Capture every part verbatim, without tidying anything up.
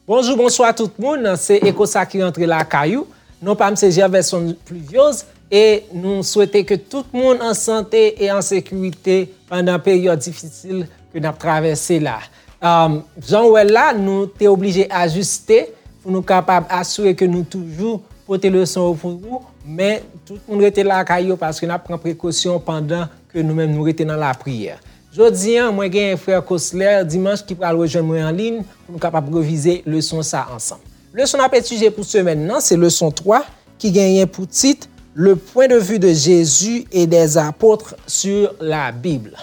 Bonjou, bonswa tout moun. Se Eko sa ki rantre lakay ou. Non pa m se Gerverson Pluviose e nou swete ke tout moun an sante e an sekirite pandan peryòd difisil ke n ap travèse la. Um, jan w wè l la, nou te oblije ajiste pou nou kapab asire ke nou toujou pote leson yo pou ou, men tout moun rete lakay yo paske n ap pran prekosyon pandan ke nou menm nou rete nan lapriyè. Jodi a, mwen genyen frè Cosler Dimanche ki pral rejwenn mwen an liy pou nou kapab revize leson sa ansanm. Leson n ap etidye pou semèn nan, se leson twa ki genyen pou tit Le point de vue de Jésus et des apôtres sur la Bible.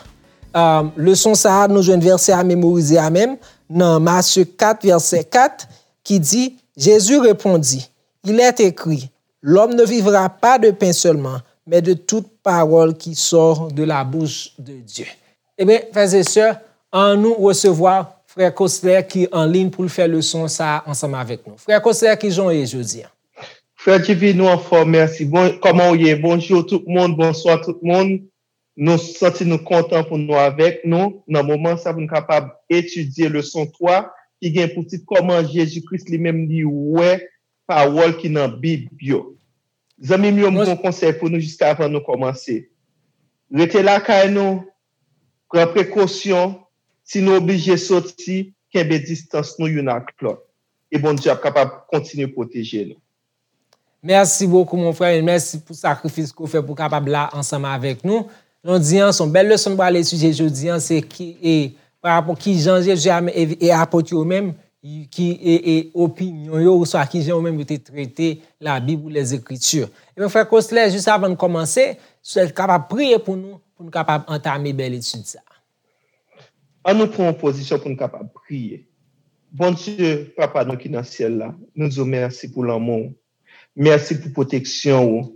Um, leson sa a, nou jwenn vèsè a memorize a menm nan Matye kat, vèsè kat, ki di, Jésus répondit, Il est écrit, l'homme ne vivra pas de pain seulement, mais de toute parole qui sort de la bouche de Dieu. Ebyen, frè e sè, annou resevwa frè Cosler ki an liy pou l fè leson sa a ansanm avèk nou. Frè Cosler, kijan w ye jodi a? Frè Jivino, anfòm, mèsi. Bon, kòman w ye? Bonjou tout moun, bonswa tout moun. Nou santi nou kontan pou nou avèk nou nan moman sa pou nou kapab etidye leson twa ki gen pou tit kòman Jezi Kris li menm li wè pawòl ki nan Bib yo. Zanmi m yo, m gen yon konsèy pou nou jiskavan nou kòmanse. Rete lakay nou, pran prekosyon, si nou oblije soti, kenbe distans nou youn ak lòt. E Bondye ap kapab kontinye pwoteje nou. Mèsi bokou mon frè, e mèsi pou sakrifis ke w fè pou w kapab la ansanm avèk nou. Jodi a, se yon bèl leson nou pral etidye jodi a, se ki, e, pa rapò kijan Jezi a, e, e apot yo menm, ki, e, e opinyon yo, oswa kijan yo menm yo te trete Labib ou Lèzekriti. Ebyen, frè Cosler, jis avan n kòmanse, si w kapab priye pou nou, pou nou kapab antame bèl etid sa a. An nou pran yon pozisyon pou nou kapab priye. Bondye, Papa nou ki nan syèl la, nou di w mèsi pou lanmou w. Mèsi pou pwoteksyon ou.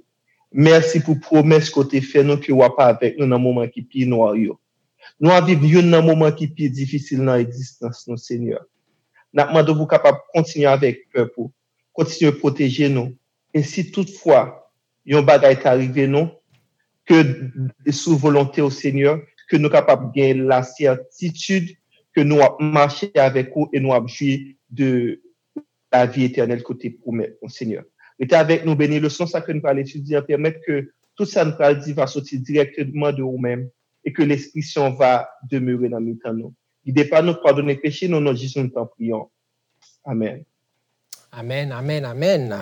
Mèsi pou pwomès ke w te fè nou ke w ap avèk nou nan moman ki pi nwa yo. Nou ap viv youn nan moman ki pi difisil nan egzistans nou, Senyè. N ap mande w pou w kapab kontinye avèk pèp ou, kontinye pwoteje nou. E si toutfwa yon bagay ta rive nou, ke sou volonte w, Senyè, ke nou kapab gen lasètitid ke nou ap mache avèk ou e nou ap jwi de lavi etènèl ke w te pwomèt nou, Senyè. Rete avèk nou, beni leson sa ke nou pral etidye an, pèmèt ke tout sa nou pral di va soti dirèkteman de ou menm e ke Lespri Sen w va demere nan mitan nou. Gide pa nou, padone peche nou, nan non Jezi nou tanpri w. Amèn. Amèn, amèn, amèn.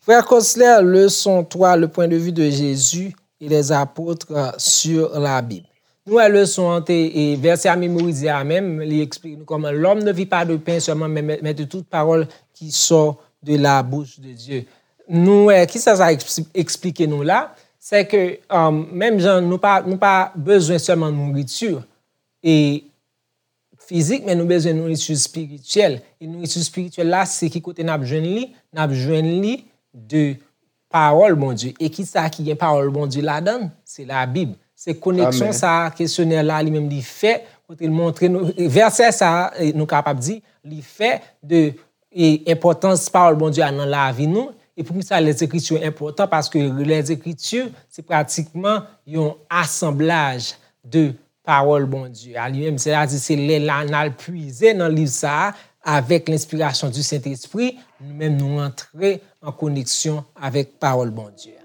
Frè Cosler, leson twa, le point de vue de Jésus et les apôtres sur la Bible. Nou wè leson an te, e vèsè a memorize a menm, li eksplike nou kòman l'homme ne vit pas de pain seulement, mais, mais, mais de toute parole qui sort de la bouche de Dieu. Nou wè, kisa sa eksplike nou la? Se ke, um, menm jan nou pa, nou pa bezwen sèlman nouriti e fizik, men nou bezwen nouriti espirityèl. E nouriti espirityèl la, se ki kote n ap jwenn li? N ap jwenn li de pawòl Bondye. E kisa ki gen pawòl Bondye ladan l? Se Labib. Se koneksyon sa a kesyonè la li menm li fè, kote l montre nou, vèsè sa a, nou kapab di, li fè de e enpòtans pawòl Bondye a nan lavi nou. E poukisa Lèzekriti enpòtan? Paske Lèzekriti se pratikman yon asanblaj de pawòl Bondye a li menm. Sètadi se lè la n al pwize nan liv sa a avèk lenspirasyon di Sentespri, nou menm nou antre an koneksyon avèk pawòl Bondye a.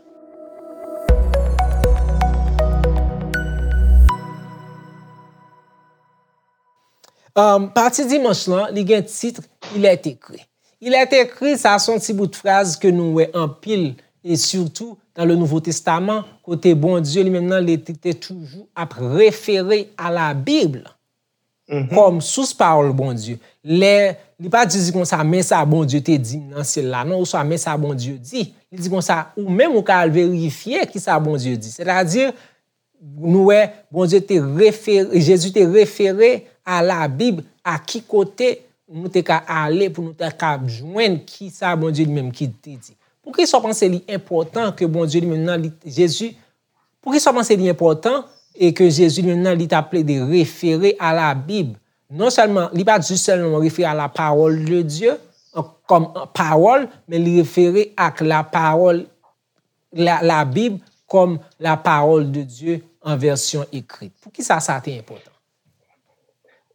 Um, pati dimanch lan, li gen tit Il est écrit. Il est écrit, sa se yon ti bout fraz ke nou wè anpil, e sitou dans le Nouveau Testament, kote Bondye li menm nan, li te, te toujou ap refere a la Bib kòm sous pawòl Bondye. Lè li pa di konsa, men sa Bondye te di m nan syèl la, non, oswa men sa Bondye di. Li di konsa, ou menm ou ka al verifye kisa Bondye di. Sètadi, nou wè, Bondye te refere, Jezi te refere a Labib, a ki kote nou te ka ale pou nou te ka jwenn kisa Bondye li menm ki te di. Poukisa w panse li enpòtan ke Bondye li menm nan, li, Jezi, poukisa w panse li enpòtan e ke Jezi li menm nan, li t ap plede refere a Labib? Non sèlman, li pa t jis sèlman refere a la parole de Dieu, an, kòm, an, pawòl, men li refere ak la parole la, Labib kòm la parole de Dieu en version écrite. Poukisa sa te enpòtan?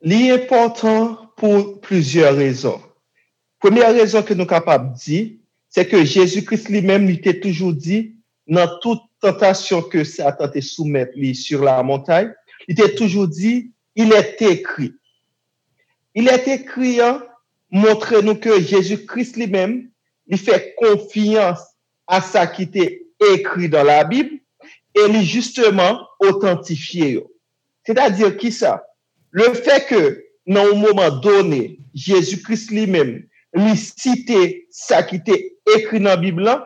Li enpòtan pou plizyè rezon. Premyè rezon ke nou kapab di, se ke Jezi Kris li menm, li te toujou di, nan tout tantasyon ke Satan te soumèt li sur la montagne, li te toujou di, il est écrit. Il est écrit an montre nou ke Jezi Kris li menm, li fè konfyans a sa ki te ekri dan Labib e li jisteman otantifye yo. Sètadi kisa? Lefètke nan yon moman done, Jezi Kris li menm, li site sa ki te ekri nan Bib lan,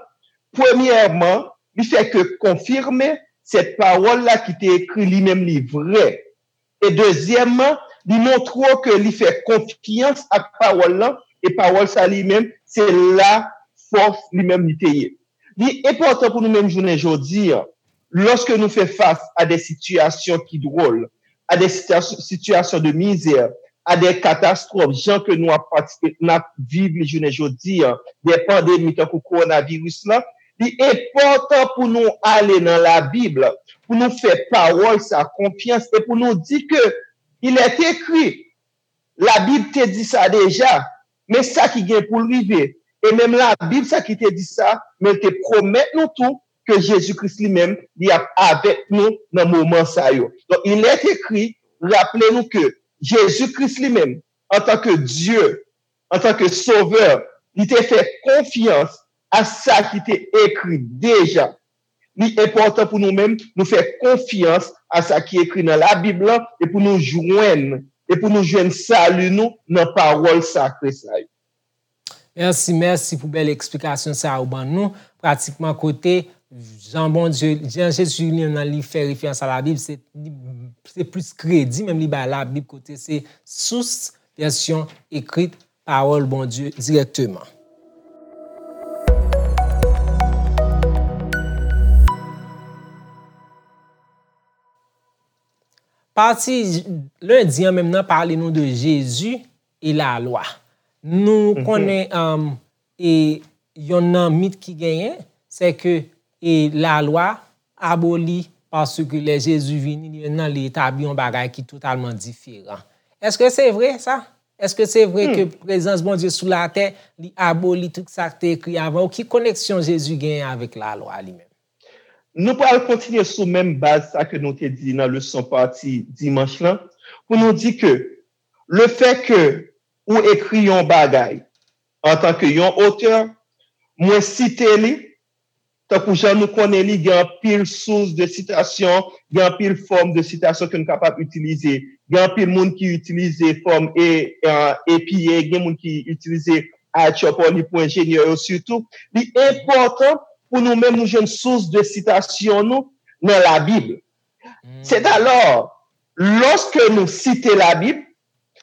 premyèman, li fè ke konfime sèt pawòl la ki te ekri li menm li vrè. E dezyèmman, li montre w ke li fè konfyans ak pawòl lan, e pawòl sa li menm, se la fòs li menm li te ye. Li enpòtan pou nou menm jounen jodi an, lòske nou fè fas a de sitiyasyon ki dwòl, a de sitiyasyon, sitiyasyon de mizè, a de katastwòf, jan ke nou ap patisipe, n ap viv li jounen jodi an, de pandemi tankou kowonaviris lan, li enpòtan pou nou ale nan Labib, pou nou fè pawòl sa konfyans e pou nou di ke il est écrit, Labib te di sa deja, men sa ki gen pou l rive. E menm Labib, sa ki te di sa, men l te pwomèt nou tou ke Jezi Kris li menm, li ap avèk nou nan moman sa yo. Donk, il est écrit, raple nou ke Jezi Kris li menm, antanke Dye, antanke Sovè, li te fè konfyans a sa ki te ekri deja. Li enpòtan pou nou menm, nou fè konfyans a sa ki ekri nan Labib lan e pou nou jwenn, e pou nou jwenn sali nou nan pawòl sakre sa yo. Mèsi, mèsi pou bèl eksplikasyon sa ou ban nou. Pratikman kote jan Bondye, jan Jezi li menm nan li fè referans a Labib, se, se plis kredi menm li bay Labib kote se sous vèsyon ekrit pawòl Bondye dirèkteman. Pati lendi an menm nan pale nou de Jezi e lalwa. Nou konnen um, e yon nan mit ki genyen, se ke e lalwa aboli paske lè Jezi vini, li menm nan li etabli yon bagay ki totalman diferan. Èske se vre sa? Èske se vre ke prezans Bondye sou latè, li aboli tout sa k te ekri avan yo? Ki koneksyon Jezi genyen avèk lalwa li menm? Nou pral kontinye sou menm baz sa ke nou te di nan leson pati dimanch lan, pou nou di ke lefètke ou ekri yon bagay antanke yon otè, mwen site li, tankou jan nou konnen li, gen anpil sous de sitasyon, gen anpil fòm de sitasyon ke nou kapab itilize. Gen anpil moun ki itilize fòm e, e, epi e, gen moun ki itilize I H R P O L I pou enjenyè yo sitou. Li enpòtan pou nou menm nou jwenn sous de sitasyon nou nan Labib. Sètalò, lòske nou site Labib,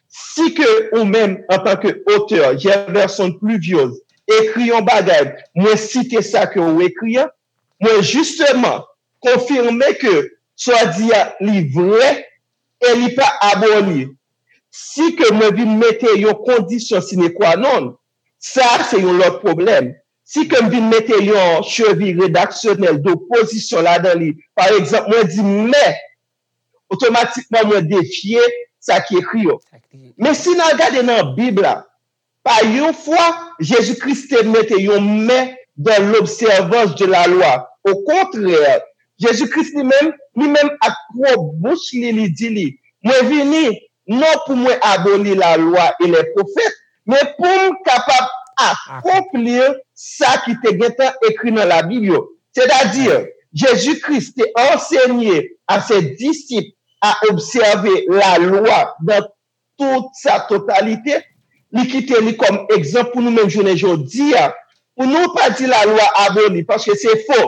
si ke ou menm, antanke otè, Gerverson Pluviose, ekri yon bagay, mwen site sa ke ou ekri an, mwen jisteman konfime ke sa w di a li vrè e li pa aboli. Si ke mwen vin mete yon kondisyon sine qua non, sa a se yon lòt pwoblèm. Si ke m vin mete yon chevi redaksyonèl dopozisyon ladan li, pa egzanp, mwen di mè, otomatikman mwen defye sa ki ekri yo. Men si n al gade nan Bib la, pa yon fwa Jezi Kris te mete yon mè dans l'observance de la loi. Okontrè, Jezi Kris li menm, li menm ak pwòp bouch li, li di li, mwen vini non pou mwen aboli lalwa e lè pwofèt, men pou m kapab akonpli sa ki te gentan ekri nan Labib yo. Sètadi, Jezi Kris te ansenye a se disip a obsève lalwa nan tout sa totalite. Li kite li kòm egzanp pou nou menm jounen jodi a. Pou nou pa di lalwa aboli, paske se fo.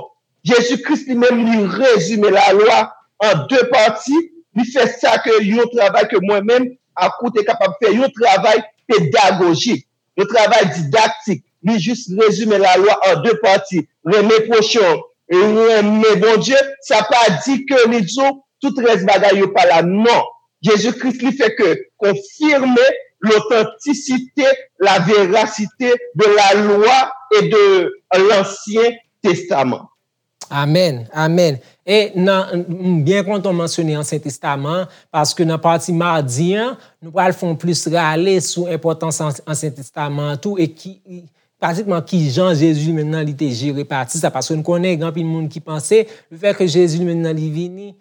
Jezi Kris li menm li rezime lalwa an de pati, li fè sa ke yon travay ke mwen menm ak ou te kapab fè, yon travay pedagojik, yon travay didaktik. Li jis rezime lalwa an de pati, renmen pwochen w, renmen Bondye, sa pa di ke li di w tout rès bagay yo pa la, non. Jezi Kris li fè ke konfime lotantisite, la verasite de la lwa e de lansyen testaman. Amèn, amèn. E nan, m byen kontan w mansyone Ansyen Testaman an, paske nan pati madi an, nou pral fè yon plis rale sou enpòtans An-, Ansyen Testaman an tou, e ki, pratikman ki jan Jezi li menm nan li te jere pati sa, paske nou konnen gen anpil moun ki panse, lefètke Jezi li menm nan li vini,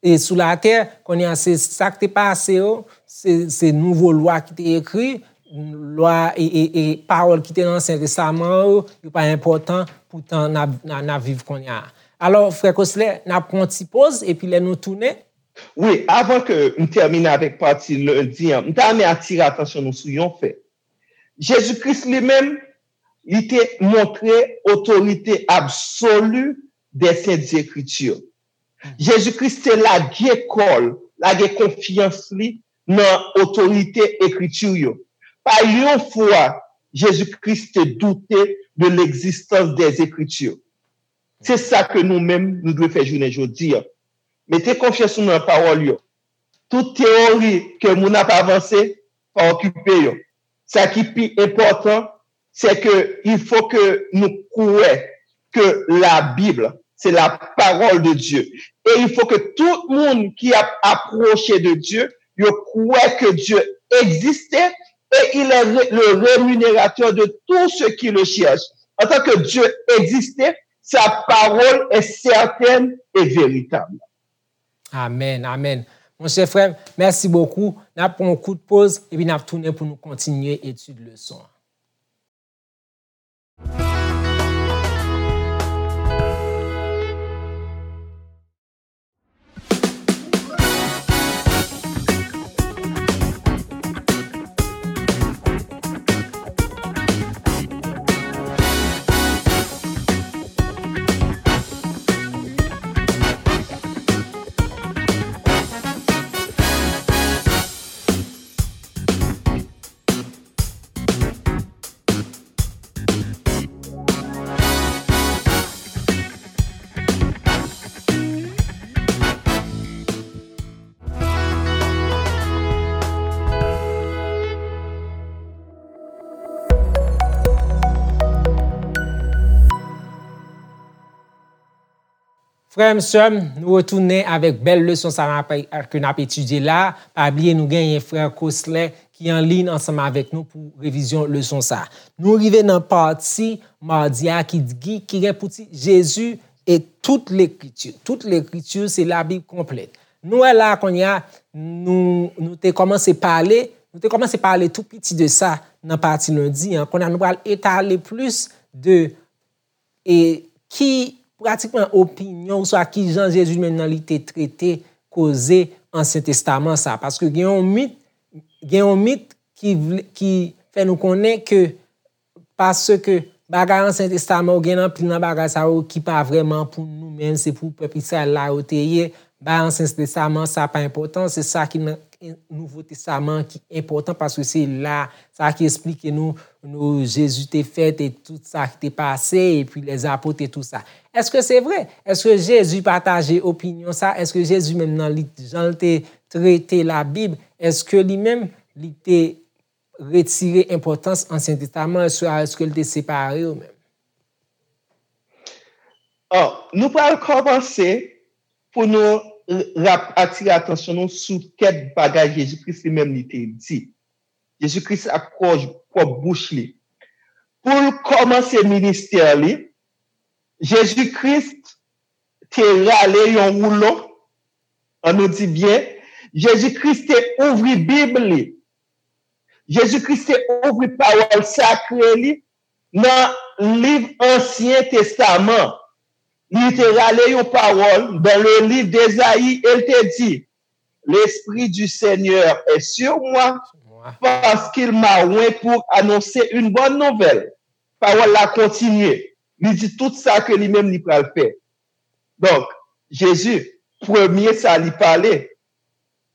e sou latè, kounye a se sa k te pase yo, se, se nouvo lwa ki te ekri, lwa e, e, e pawòl ki te nan Ansyen Testaman yo, yo pa enpòtan, poutan n ap, n ap, n ap viv kounye a. Alò, frè Kosler, n ap pran yon ti poz, epi lè nou tounen. Wi, avan ke m tèmine avèk pati lendi an, m ta renmen atire atansyon nou sou yon fè. Jezi Kris li menm, li te montre otorite absoli des Saintes Écritures. Jezi Kris te lage kò l, lage konfyans li nan otorite Ekriti yo. Pa yon fwa, Jezi Kris te doute de l'existence des Écritures. Se sa ke nou menm, nou dwe fè jounen jodi a. Mete konfyans nou nan pawòl yo. Tout teyori ke moun ap avanse, pa okipe yo. Sa ki pi enpòtan, c'est que il faut que nou kwè que la Bible, c'est la parole de Dieu. Et il faut que tout moun ki ap apwoche de Dieu, yo kwè que Dieu existe et il est ré-, le rémunérateur de tout ce qui le cherche. En tant que Dieu existe, sa pawòl est certaine et véritable. Amèn, amèn. Monchè frè m, mèsi bokou. N ap pran yon kout poz, epi n ap tounen pou nou kontinye etid leson an. Frè m, sè m, nou retounen avèk bèl leson sa n ap, ke n ap etidye la. Pa bliye, nou genyen frè Kosler ki an liy ansanm avèk nou pou revizyon leson sa. Nou rive nan pati madi a ki, ki, ki gen pou tit Jezi e tout lekriti. Tout lekriti, se Labib konplèt. Nou wè la kounye a, nou, nou te kòmanse pale, nou te kòmanse pale tou piti de sa nan pati lendi an. Kounye a nou pral etale plis de e ki pratikman opinyon oswa ki jan Jezi menm nan li te trete koze Ansyen Testaman sa. Paske gen yon mit, gen yon mit ki vle, ki fè nou konnen ke paske bagay Ansyen Testaman yo gen anpil nan bagay sa yo ki pa vrèman pou nou menm, se pou pèp Izrayèl la yo te ye. Bagay Ansyen Testaman sa pa enpòtan, se sa ki nan Nouvo Testaman ki enpòtan paske se la sa ki esplike nou, nou Jezi te fèt e tout sa ki te pase, epi lèzapot e tout sa. Èske se vre? Èske Jezi pataje opinyon sa? Èske Jezi menm nan li, jan l te trete Labib, èske li menm li te retire enpòtans Ansyen Testaman, oswa èske l te separe yo menm? Ò, nou pral kòmanse pou nou r-, rap-, atire atansyon nou sou kèk bagay Jezi Kris li menm li te di. Jezi Kris ak pwòj-, pwòp bouch li. Pou l kòmanse ministè li, Jezi Kris te rale yon woulon, ann nou di byen, Jezi Kris te ouvri Bib li. Jezi Kris te ouvri pawòl sakre li nan liv Ansyen Testaman. Li te rale yon pawòl dans le livre d'Ésaïe e l te di, L'Esprit du Seigneur est sur moi, parce qu'il m'a oint pour annoncer une bonne nouvelle. Pawòl la kontinye. Li di tout sa ke li menm li pral fè. Donk, Jezi, premye sa li pale,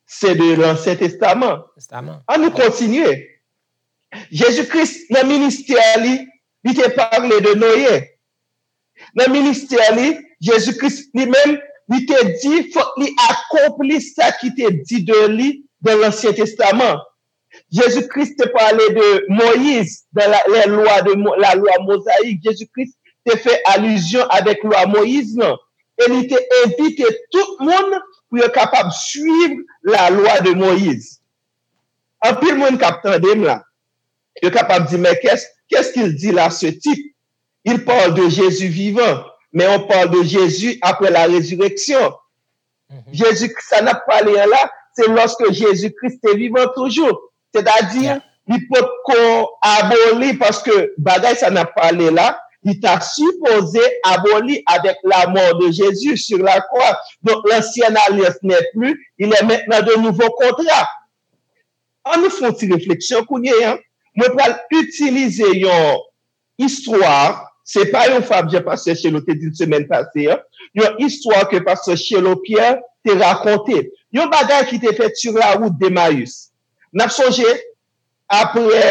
se de Lansyen Testaman. Testaman. Ann nou kontinye. Jezi Kris, nan ministè li, li te pale de Noye. Nan ministè li, Jezi Kris li menm, li te di, fòk li akonpli sa ki te di de li dans Lansyen Testaman. Jezi Kris te pale de Moyiz dans la, les lois de Mo-, la loi mosaïque. Jezi Kris te fè alizyon avèk lwa Moyiz lan, e li te envite tout moun pou yo kapab swiv lalwa de Moyiz. Anpil moun k ap tande m la, yo kapab di, mais qu'est-ce qu'est-ce qu'il dit là, ce type? Il parle de Jésus vivant, mais on parle de Jésus après la résurrection. Jezi, sa n ap pale an la, se lòske Jezi Kris te vivan toujou. Sètadi, li potko aboli, paske bagay sa n ap pale la, li ta sipoze aboli avec la mort de Jésus sur la croix. Donc, l'ancienne alliance n'est plus, il est maintenant de nouveaux contrats. An nou fè yon ti refleksyon kounye a. Mwen pral itilize yon istwa, se pa yon fab jan pastè Chelo te di l semèn pase a, yon istwa ke pastè Chelo Pierre te rakonte. Yon bagay ki te fèt sur la route d'Emmaüs. N ap sonje, apre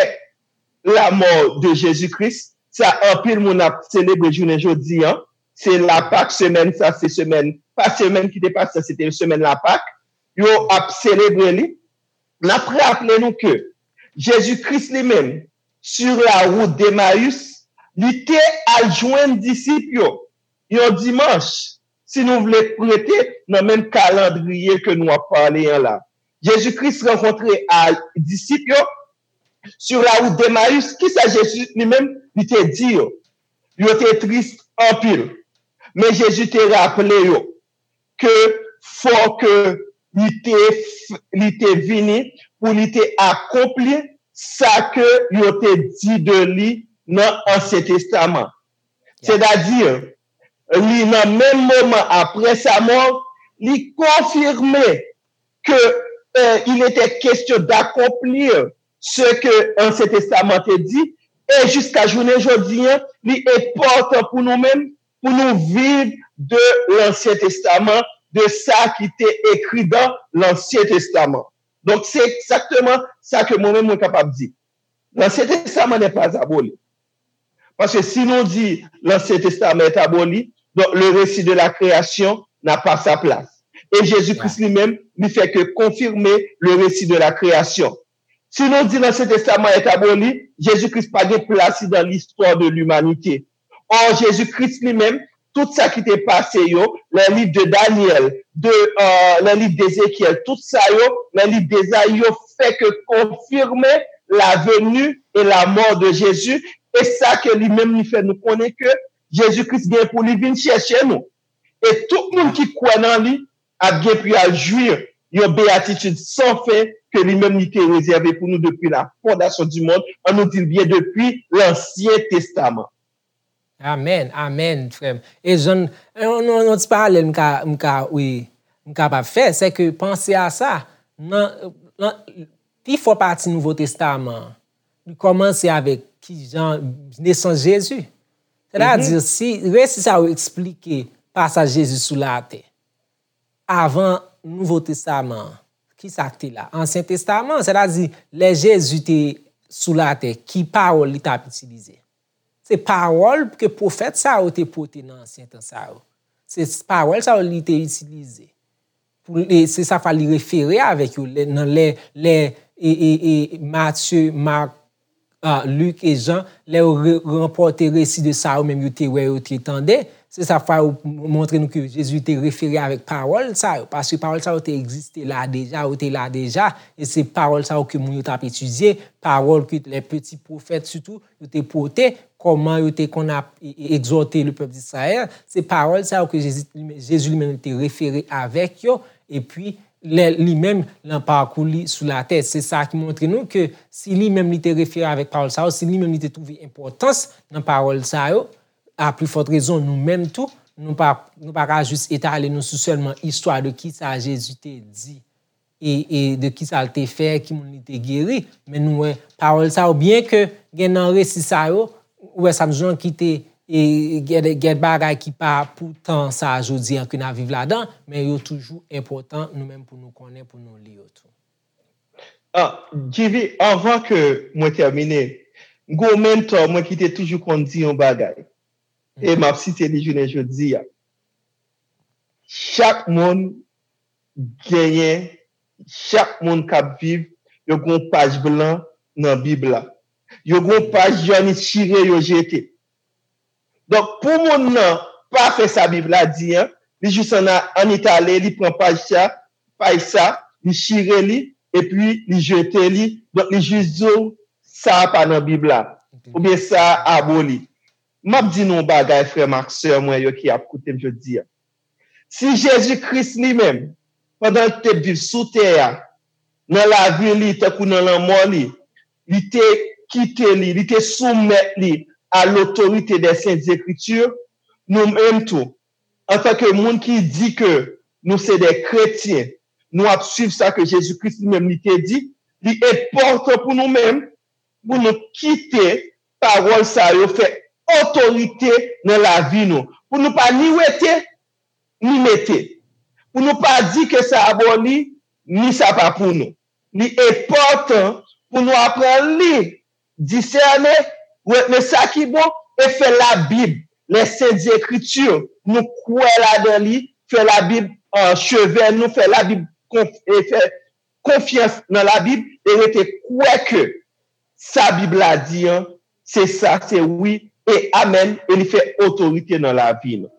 la mort de Jésus-Christ, sa anpil moun ap selebre jounen jodi a. Se Lapak, semèn sa, se semèn, pa semèn ki te pase, se te semèn Lapak. Yo ap selebre li. N ap raple nou ke Jezi Kris li menm, sur la route d'Emmaüs, li te al jwenn disip yo yon dimanch, si nou vle prete nan menm kalandriye ke nou ap pale an la. Jezi Kris rankontre a disip yo sur la route d'Emmaüs. Kisa Jezi li menm li te di yo? Yo te tris anpil. Men Jezi te raple yo ke fò ke li te, li te vini pou li te akonpli sa ke yo te di de li nan Ansyen Testaman. Sètadi, li nan menm moman apre sa mò, li konfime ke euh, il était question d'accomplir ce que Ansyen Testaman te di, e jiska jounen jodi a, li enpòtan pou nou menm, pou nou viv de Lansyen Testaman, de sa ki te ekri dan Lansyen Testaman. Donk, se egzakteman sa ke mwen menm mwen kapab di. Lansyen Testaman n'est pas aboli. Paske si nou di Lansyen Testaman est aboli, donk le récit de la création n'a pas sa place. E Jezi Kris li menm, li fè ke konfime le récit de la création. Si nou di Lansyen Testaman est aboli, Jezi Kris pa gen plas li dan listwa de limanite. Or, Jezi Kris li menm, tout sa ki te pase yo, les livres de Daniel, de, euh, les livres d'Ézéchiel, tout sa yo, les livres d'Ésaïe, yo fè ke konfime la venue et la mort de Jésus, e sa ke li menm li fè nou konnen ke Jezi Kris gen pou li vin chèche nou. E tout moun ki kwè nan li ap gen pou y al jwi yon beyatitid san fen ke li menm li te rezève pou nou depi la fondasyon di mond, an nou di l byen depi Lansyen Testaman. Amèn, amèn, frè m. E jan, yon, yon, yon ti paralèl m ka, m ka, wi, m kapab fè, se ke panse a sa, nan, nan, pi fò pati Nouvo Testaman an, li kòmanse avèk kijan nesans Jezi. Sètadi, si resi sa yo eksplike pasaj Jezi sou latè, avan Nouvo Testaman an, kisa k te la? Ansyen Testaman, sètadi, lè Jezi te sou latè, ki pawòl li t ap itilize? Se pawòl ke pwofèt sa yo te pote nan ansyen tan sa yo. Se pawòl sa yo li te itilize. Pou, e, se sa fwa li refere avèk yo lè, nan lè, lè e, e, e, Matye, Mak, a, Lik e Jan, lè yo re, ranpòte resi de sa yo menm yo te wè, yo te tande, se sa fwa yo montre nou ke Jezi te refere avèk pawòl sa yo. Paske pawòl sa yo te egziste la deja, yo te la deja, e se pawòl sa yo ke moun yo t ap etidye, pawòl ke lè peti pwofèt sitou, yo te pote, kòman yo te konn ap e, e, egzòte le pèp d'Israël, se pawòl sa yo ke Jezi, Jezi li menm te refere avèk yo, epi lè li menm nan pakou li sou latè. Se sa ki montre nou ke si li menm li te refere avèk pawòl sa yo, si li menm li te twouve enpòtans nan pawòl sa yo, a pli fòt rezon nou menm tou, nou pa, nou pa ka jis etale nou sou sèlman istwa de kisa Jezi te di e, e de kisa l te fè, ki moun li te geri. Men nou wè pawòl sa yo, byen ke gen nan resi sa yo, ou wè sa m di w lan ki te, e, gen, gen bagay ki pa pou tan sa a jodi a ke n ap viv ladan, men yo toujou enpòtan nou menm pou nou konnen, pou nou li yo tou. Ah, Djivi, anvan ke mwen tèmine, m gen yon mentò mwen ki te toujou konn di yon bagay. E m ap site li jounen jodi a. Chak moun genyen, chak moun k ap viv, yo gen yon paj blan nan Bib la. Yo gen yon paj jòn chire yo jete. Donk, pou moun nan pa fè sa Bib la di an, li jis ann, ann etale, li pran paj sa, paj sa, li chire li, epi li jete li. Donk, li jis di w, sa a pa nan Bib la, oubyen sa a aboli. M ap di nou yon bagay, frè m ak sè mwen yo ki ap koute m jodi a. Si Jezi Kris li menm, pandan l te viv sou tè a, nan lavi li, tankou nan lanmò li, li te kite li, li te soumèt li a lotorite dè Sent Ekriti, nou menm tou, antanke moun ki di ke nou se de kretyen, nou ap swiv sa ke Jezi Kris li menm li te di, li enpòtan pou nou menm, pou nou kite pawòl sa yo fè otorite nan lavi nou, pou nou pa ni wete, ni mete, pou nou pa di ke sa aboli, ni sa pa pou nou. Li enpòtan pou nou aprann li, disène, retne sa ki bon, e fè Labib, les Saintes Écritures, nou kwè ladan li, fè Labib, euh, cheve nou, fè Labib konf- e fè konfyans nan Labib e rete kwè ke sa Bib la di an, se sa, se wi e amèn, e li fè otorite nan lavi nou.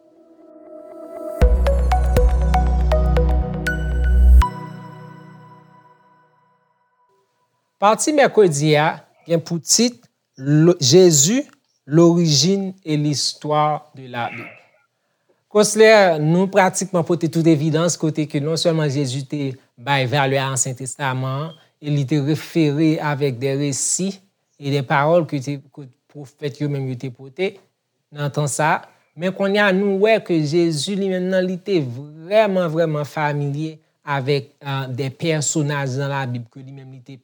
Pati mèkredi a gen pou tit Lo- Jezi, lorijin e listwa de la Bib. Konsler, nou pratikman pote tout evidans kote ke non sèlman Jezi te bay valè a Ansyen Testaman an, e li te refere avèk de resi e de pawòl ke te, ke pwofèt yo menm yo te pote nan tan sa a. Men kounye a, nou wè ke Jezi li menm nan, li te vrèman, vrèman familye avèk uh, de pèsonaj nan Labib ke li menm li te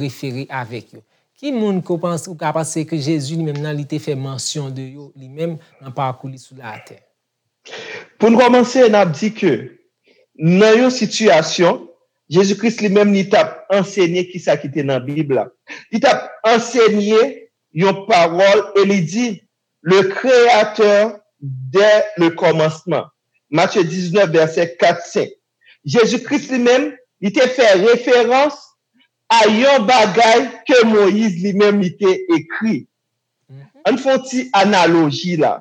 refere avèk yo. Ki moun ke w panse, ou ka panse ke Jezi li menm nan, li te fè mansyon de yo li menm nan pakou li sou latè? Pou n kòmanse, n ap di ke nan yon sitiyasyon, Jezi Kris li menm li t ap ansenye kisa ki te nan Bib la. Li t ap ansenye yon pawòl e li di, le Créateur dès le commencement. Matthieu diznèf, vèsè kat, senk. Jezi Kris li menm, li te fè referans a yon bagay ke Moyiz li menm li te ekri. Ann fè yon ti analoji la.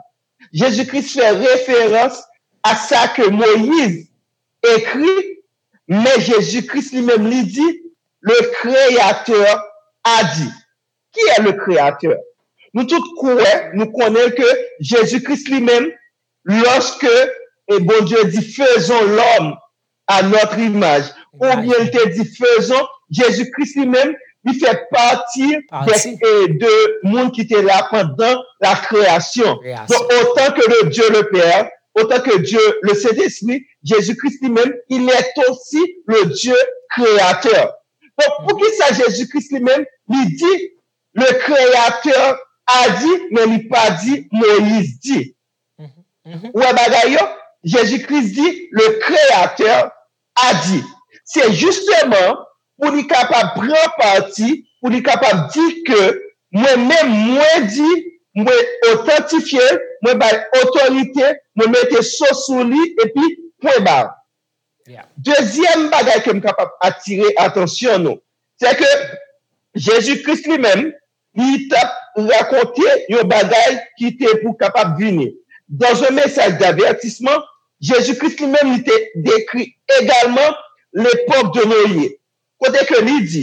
Jezi Kris fè referans a sa ke Moyiz ekri, men Jezi Kris li menm li di, le Créateur a dit. Qui est le Créateur? Nou tout kwè, nou konnen ke Jezi Kris li menm, lorsque et Bondye di, faisons l'homme à notre image, oubyen li te di, faisons, Jezi Kris li menm, li fè pati de, de moun ki te la pandan la kreyasyon. Donk, otan ke le Dieu le Père, otan ke Dieu le Saint-Esprit, Jezi Kris li menm, il est aussi le Dieu créateur. Donk, poukisa Jezi Kris li menm, li di, le Créateur a dit, men li pa di, Moyiz di. Ou wè bagay yo? Jezi Kris di, le Créateur a dit. Se jisteman pou li kapab pran pati, pou li kapab di ke mwen menm, mwen di, mwen otantifye l, mwen bay otorite, mwen mete so sou li, epi pwen ba. Dezyèm bagay ke m kapab atire atansyon nou, se ke Jezi Kris li menm, li t ap rakonte yon bagay ki te pou kapab vini. Dans un message d'avertissement, Jezi Kris li menm, li te dekri egalman lepòk de Noye, kote ke li di,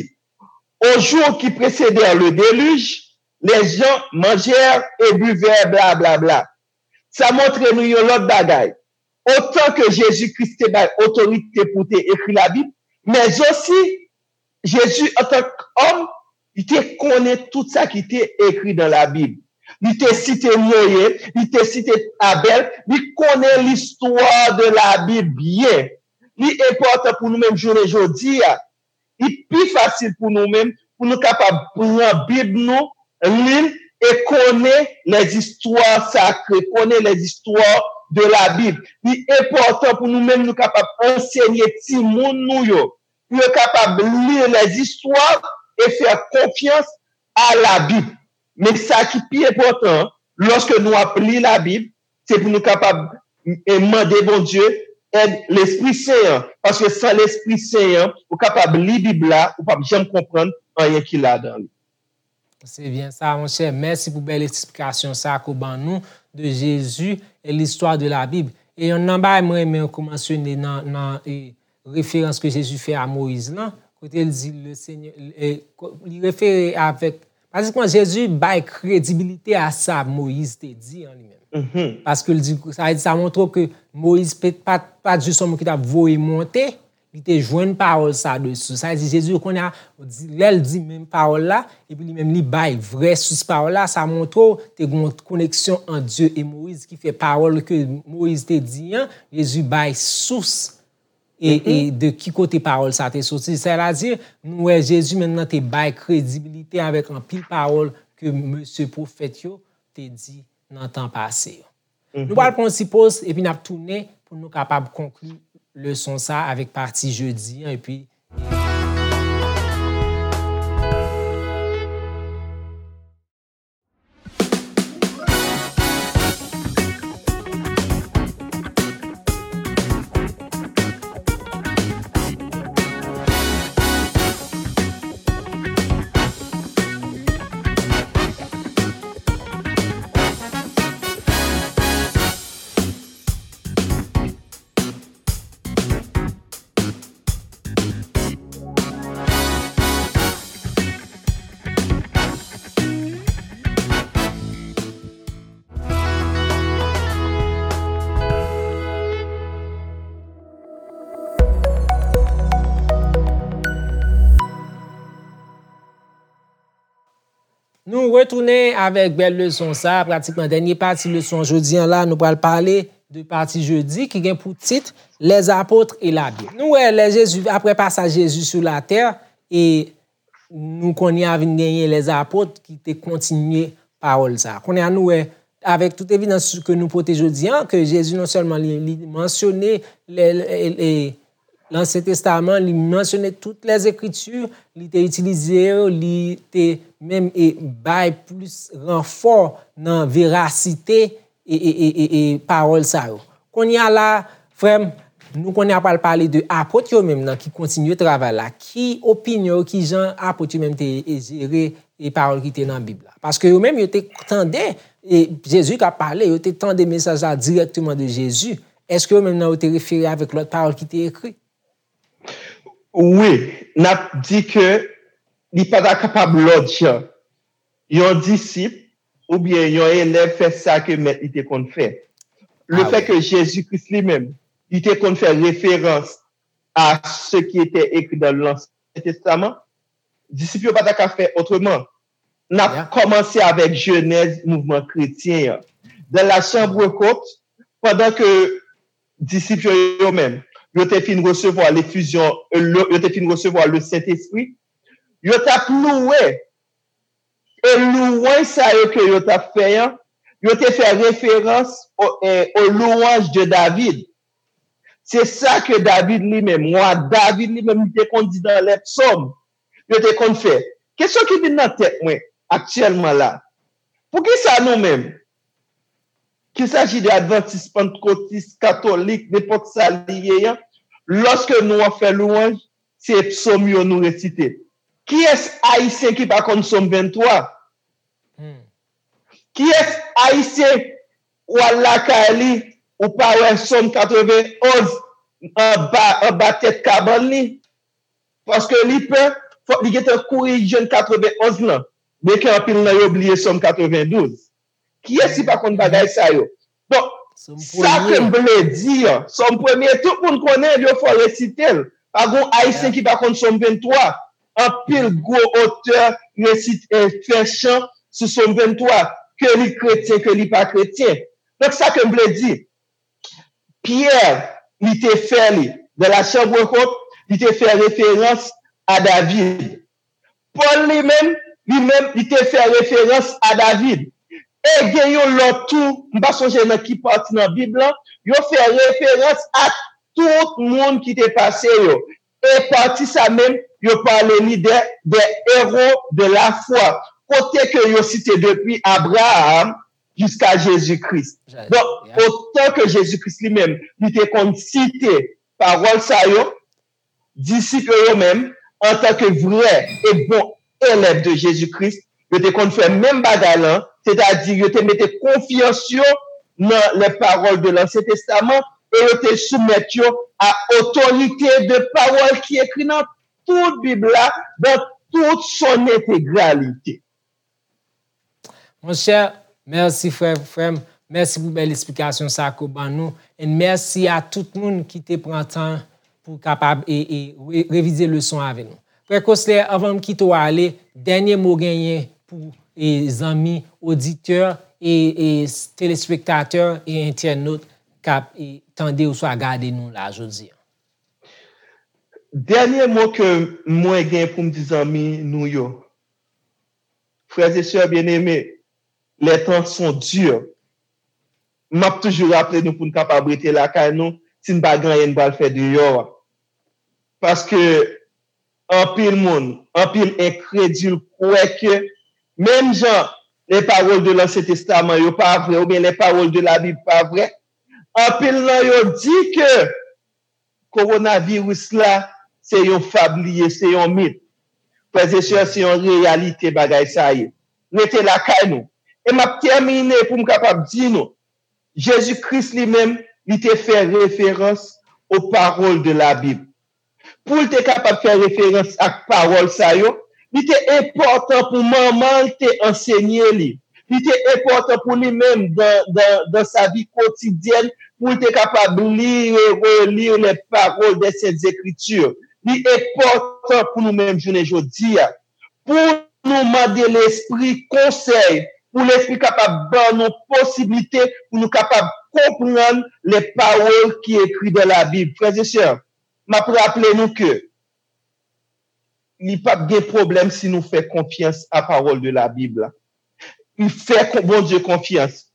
aux jours qui précédèrent le déluge, les gens mangèrent et buvèrent, bla, bla, bla. Sa montre nou yon lòt bagay. Otan ke Jezi Kris te bay otorite pou te ekri Labib, men osi, Jezi, antank òm, li te konnen tout sa ki te ekri nan Labib. Li te site Noye, li te site Abèl, li konnen listwa de Labib byen. Li enpòtan pou nou menm jounen jodi a. Li pi fasil pou nou menm, pou nou kapab pran Bib nou, li l, e konnen lèzistwa sakre, konnen lèzistwa de Labib. Li enpòtan pou nou menm, nou kapab ansenye timoun nou yo, pou yo kapab li lèzistwa e fè konfyans a Labib. Men sa ki pi enpòtan, lòske nou ap li Labib, se pou nou kapab e mande Bondye èd Lespri Sen an. Paske san Lespri Sen an, ou kapab li Bib la, ou p ap janm konprann anyen ki ladan li. Se byen sa, monchè. Mèsi pou bèl esplikasyon sa ke w ban nou de Jezi e listwa de la Bib. E yonn nan bagay mwen renmen ke w mansyone nan, nan e, referans ke Jezi fè a Moyiz lan, kote l di le Seigneur, e, ko- li refere avèk, pratikman Jezi bay kredibilite a sa Moyiz te di an li menm. Paske l di, sa vle di, sa montre w ke Moyiz pe- pa, pa t jis yon moun ki t ap voye monte, li te jwenn pawòl sa de sous. Sa vle di, Jezi, kounye a, di- lè l di menm pawòl la, epi li menm li bay vrè sous pawòl la, sa montre w te gen yon koneksyon ant Dye e Moyiz ki fè pawòl ke Moyiz te di an, Jezi bay sous e, e de ki kote pawòl sa te soti. Sètadi, nou wè Jezi menm nan te bay kredibilite avèk anpil pawòl ke mesye pwofèt yo te di nan tan pase yo. Nou pral pran yon ti poz, epi n ap tounen pou nou kapab konkli leson sa avèk pati jedi an, epi Nou retounen avèk bèl leson sa, pratikman dènye pati leson jodi an la, nou pral pale de pati jedi ki gen pou tit Les apôtres et la Bible. Nou wè lè Jezi, apre pasaj Jezi sou latè, e nou kounye a vin genyen les apôtres ki te kontinye pawòl sa. Kounye a nou wè, avèk tout evidans ke nou pote jodi an, ke Jezi non sèlman li, li mansyone le, le, le, Lansyen Testaman, li mansyone tout les Écritures, li te itilize yo, li te menm e bay plis ranfò nan verasite e, e, e, e, e pawòl sa yo. Kounye a la, frè m, nou konnen a pral pale de apot yo menm nan ki kontinye travay la. Ki opinyon yo, ki jan apot yo menm te e jere e pawòl ki te nan Bib la? Paske yo menm, yo te tande e Jezi k ap pale, yo te tande mesaj la dirèkteman de Jezi. Èske yo menm nan yo te refere avèk lòt pawòl ki te ekri? Wi, n ap di ke li pa ta kapab lòt jan. Yon disip oubyen yon elèv fè sa ke mèt li te konn fè. Le fè ke Jezi Kris li menm, li te konn fè referans a ce qui était écrit dans l'Ancien Testament, disip yo pa ta ka fè otreman. N ap kòmanse avèk jenèz mouvman kretyen an. Dans la chambre haute, pandan ke disip yo, yo menm, yo te fin resevwa lefizyon, le- yo te fin resevwa le Sentespri, yo t ap louwe. E louwanj sa yo ke yo t ap fè an, yo te fè referans o, e, aux louanges de David. Se sa ke David li menm, wa David li menm, li te konn di dans les psaumes. Yo te konn fè. Kesyon ki vin nan tèt mwen aktyèlman la, poukisa nou menm, qu'il s'agit de adventiste, pantekotis, katolik, nenpòt sa li ye an, lòske nou ap fè louwanj, se psòm yo nou resite. Kiyès ayisyen ki pa konn sòm venntwa? Kiyès ayisyen w al lakay li, ou pa wè sòm katrevenn onz anba, anba tèt kabann li? Paske li pè, fòk li gentan kouri jwenn katrevenn onz lan. Byenke anpil nan yo bliye sòm katrevendouz. Kiyès ki pa konn bagay sa yo? Donk, sa ke m vle di an, sòm premye, tout moun konnen l, yo fò resite l. Pa gon ayisyen ki pa konn sòm venntwa. Anpil gwo otè resite, fè chan sou sòm venntwa, ke li kretyen, ke li pa kretyen. Donk, sa ke m vle di, Pyè, li te fè li, dans la chambre haute, li te fè referans a David. Pòl li menm, li menm, li te fè referans a David. E gen yon lòt tou, m pa sonje nan ki pati nan Bib lan, yo fè referans a tout moun ki te pase yo. E pati sa menm, yo pale li de, des héros de la foi. Kote ke yo site depi Abraham jiska Jezi Kris. Donk, otan ke Jezi Kris li menm, li te konn site pawòl sa yo, disip yo, yo menm, antanke vrè e bon elèv de Jezi Kris, Yo te konn fè menm bagay lan, sètadi yo te mete konfyans yo nan les paroles de l'Ancien Testament e yo te soumèt yo à autorité de parole ki ekri nan tout Bib la, dans toute son intégralité. Monchè, mèsi frè, frè m. Mèsi pou bèl esplikasyon sa ke w ban nou. And mèsi a tout moun ki te pran tan pou kapab e, e re, revize leson avè nou. Frè Cosler, anvan m kite w ale, dènye mo genyen pou e zanmi, oditè, e, e telespektatè, e entènot k ap e tande oswa gade nou la jodi a. Dènye mo ke mwen gen pou m di zanmi nou yo, frères et sœurs bien-aimés, les temps sont durs. M ap toujou raple nou pou n kapab rete lakay nou, si n pa gen anyen n pral fè deyò a. Paske anpil moun, anpil enkredil kwè ke menm jan les paroles de l'Ancien Testament yo pa vrè, oubyen les paroles de la Bible pa vrè, anpil nan yo di ke kowonaviris la, se yon fab li ye, se yon mit. Frè e sè, se yon reyalite bagay sa ye. Rete lakay nou. E m ap tèmine pou m kapab di nou, Jezi Kris li menm, li te fè referans aux paroles de la Bible. Pou l te kapab fè referans ak pawòl sa yo, li te enpòtan pou manman l te ansenye li. Li te enpòtan pou li menm, dans, dans, dans sa vie quotidienne, pou l te kapab lire et relire les paroles des Saintes Écritures. Li enpòtan pou nou menm jounen jodi a. Pou nou mande Lespri konsèy, pou Lespri kapab ban nou posiblite pou nou kapab konprann les paroles qui écrit dans la Bible. Frè e sè, m ap raple nou ke li p ap gen pwoblèm si nou fè konfyans a pawòl de la Bib la. Fè Bondye konfyans.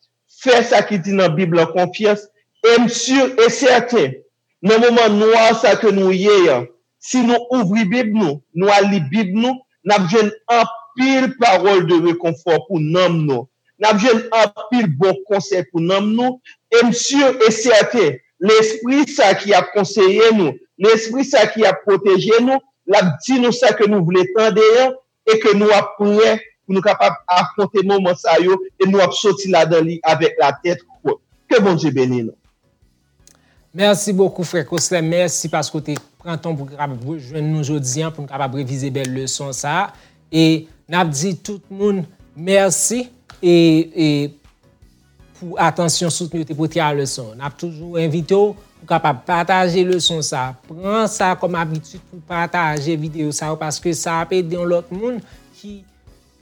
Fè sa ki di nan Bib lan konfyans. E m si e sèten, nan moman nwa sa ke nou ye an, si nou ouvri Bib nou, nou al li Bib nou, n ap jwenn anpil pawòl de rekonfò pou nanm nou. N ap jwenn anpil bon konsèy pou nanm nou. E m si e sèten, Lespri sa ki ap konseye nou, Lespri sa ki ap pwoteje nou, l ap di nou sa ke nou vle tande an, e ke nou ap prè pou nou kapab afwonte moman sa yo e nou ap soti ladan li avèk latèt wot. Ke Bondye beni nou. Mèsi bokou frè Cosler, mèsi paske w te pran tan pou w kapab rejwenn nou jodi an pou nou kapab revize bèl leson sa a. E n ap di tout moun mèsi e, e pou atansyon soutni yo te pote a leson. N ap toujou envite w pou kapab pataje leson sa. Pran sa kòm abitid pou pataje videyo sa yo paske sa ap ede yon lòt moun ki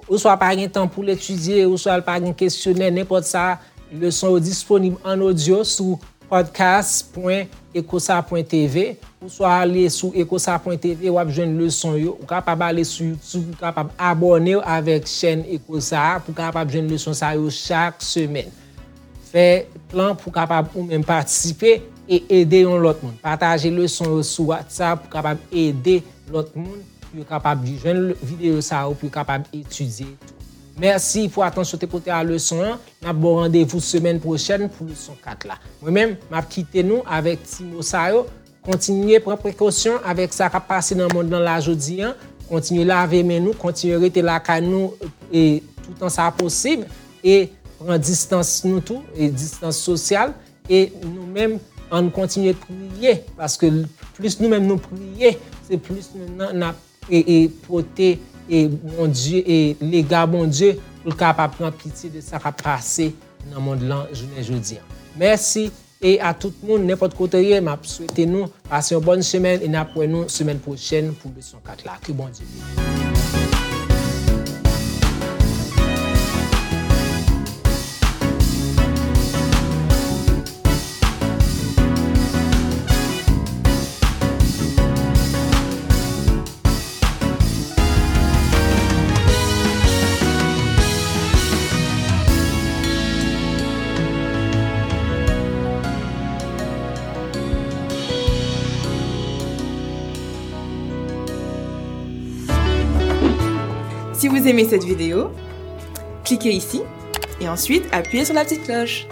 oswa pa gen tan pou l etidye, oswa l pa gen kesyonè, nenpòt sa, leson yo disponib an odyo sou podcast pwen ecosa pwen tv, oswa ale sou ecosa pwen tv, w ap jwenn leson yo. Ou kapab ale sou YouTube, ou kapab abòne w avèk chèn Ecosa a pou w kapab jwenn leson sa yo chak semèn. Fè plan pou w kapab ou menm patisipe e ede yon lòt moun. Pataje leson yo sou WhatsApp pou w kapab ede lòt moun pou yo kapab jwenn videyo sa yo, pou yo kapab etidye tou. Mèsi pou atansyon w te pote a leson an. N ap ba w randevou semèn pwochèn pou leson kat la. Mwen menm, m ap kite nou avèk ti mo sa yo. Kontinye pran prekosyon avèk sa k ap pase nan mond lan la jodi an. Kontinye lave men nou, kontinye rete lakay nou e toutan sa posib. E pran distans nou tou, e distans sosyal. E nou menm, ann kontinye priye, paske plis nou menm nou priye, se plis nou menm nan n ap e, e pote e Bondye, e lega Bondye pou l kapab pran pitye de sa k ap pase nan mond lan jounen jodi an. Mèsi e a tout moun, nenpòt kote w ye, m ap swete nou pase yon bòn semèn e n ap wè nou semèn pwochèn pou leson kat la. Ke Bondye beni. Si vous aimez cette vidéo, cliquez ici et ensuite appuyez sur la petite cloche.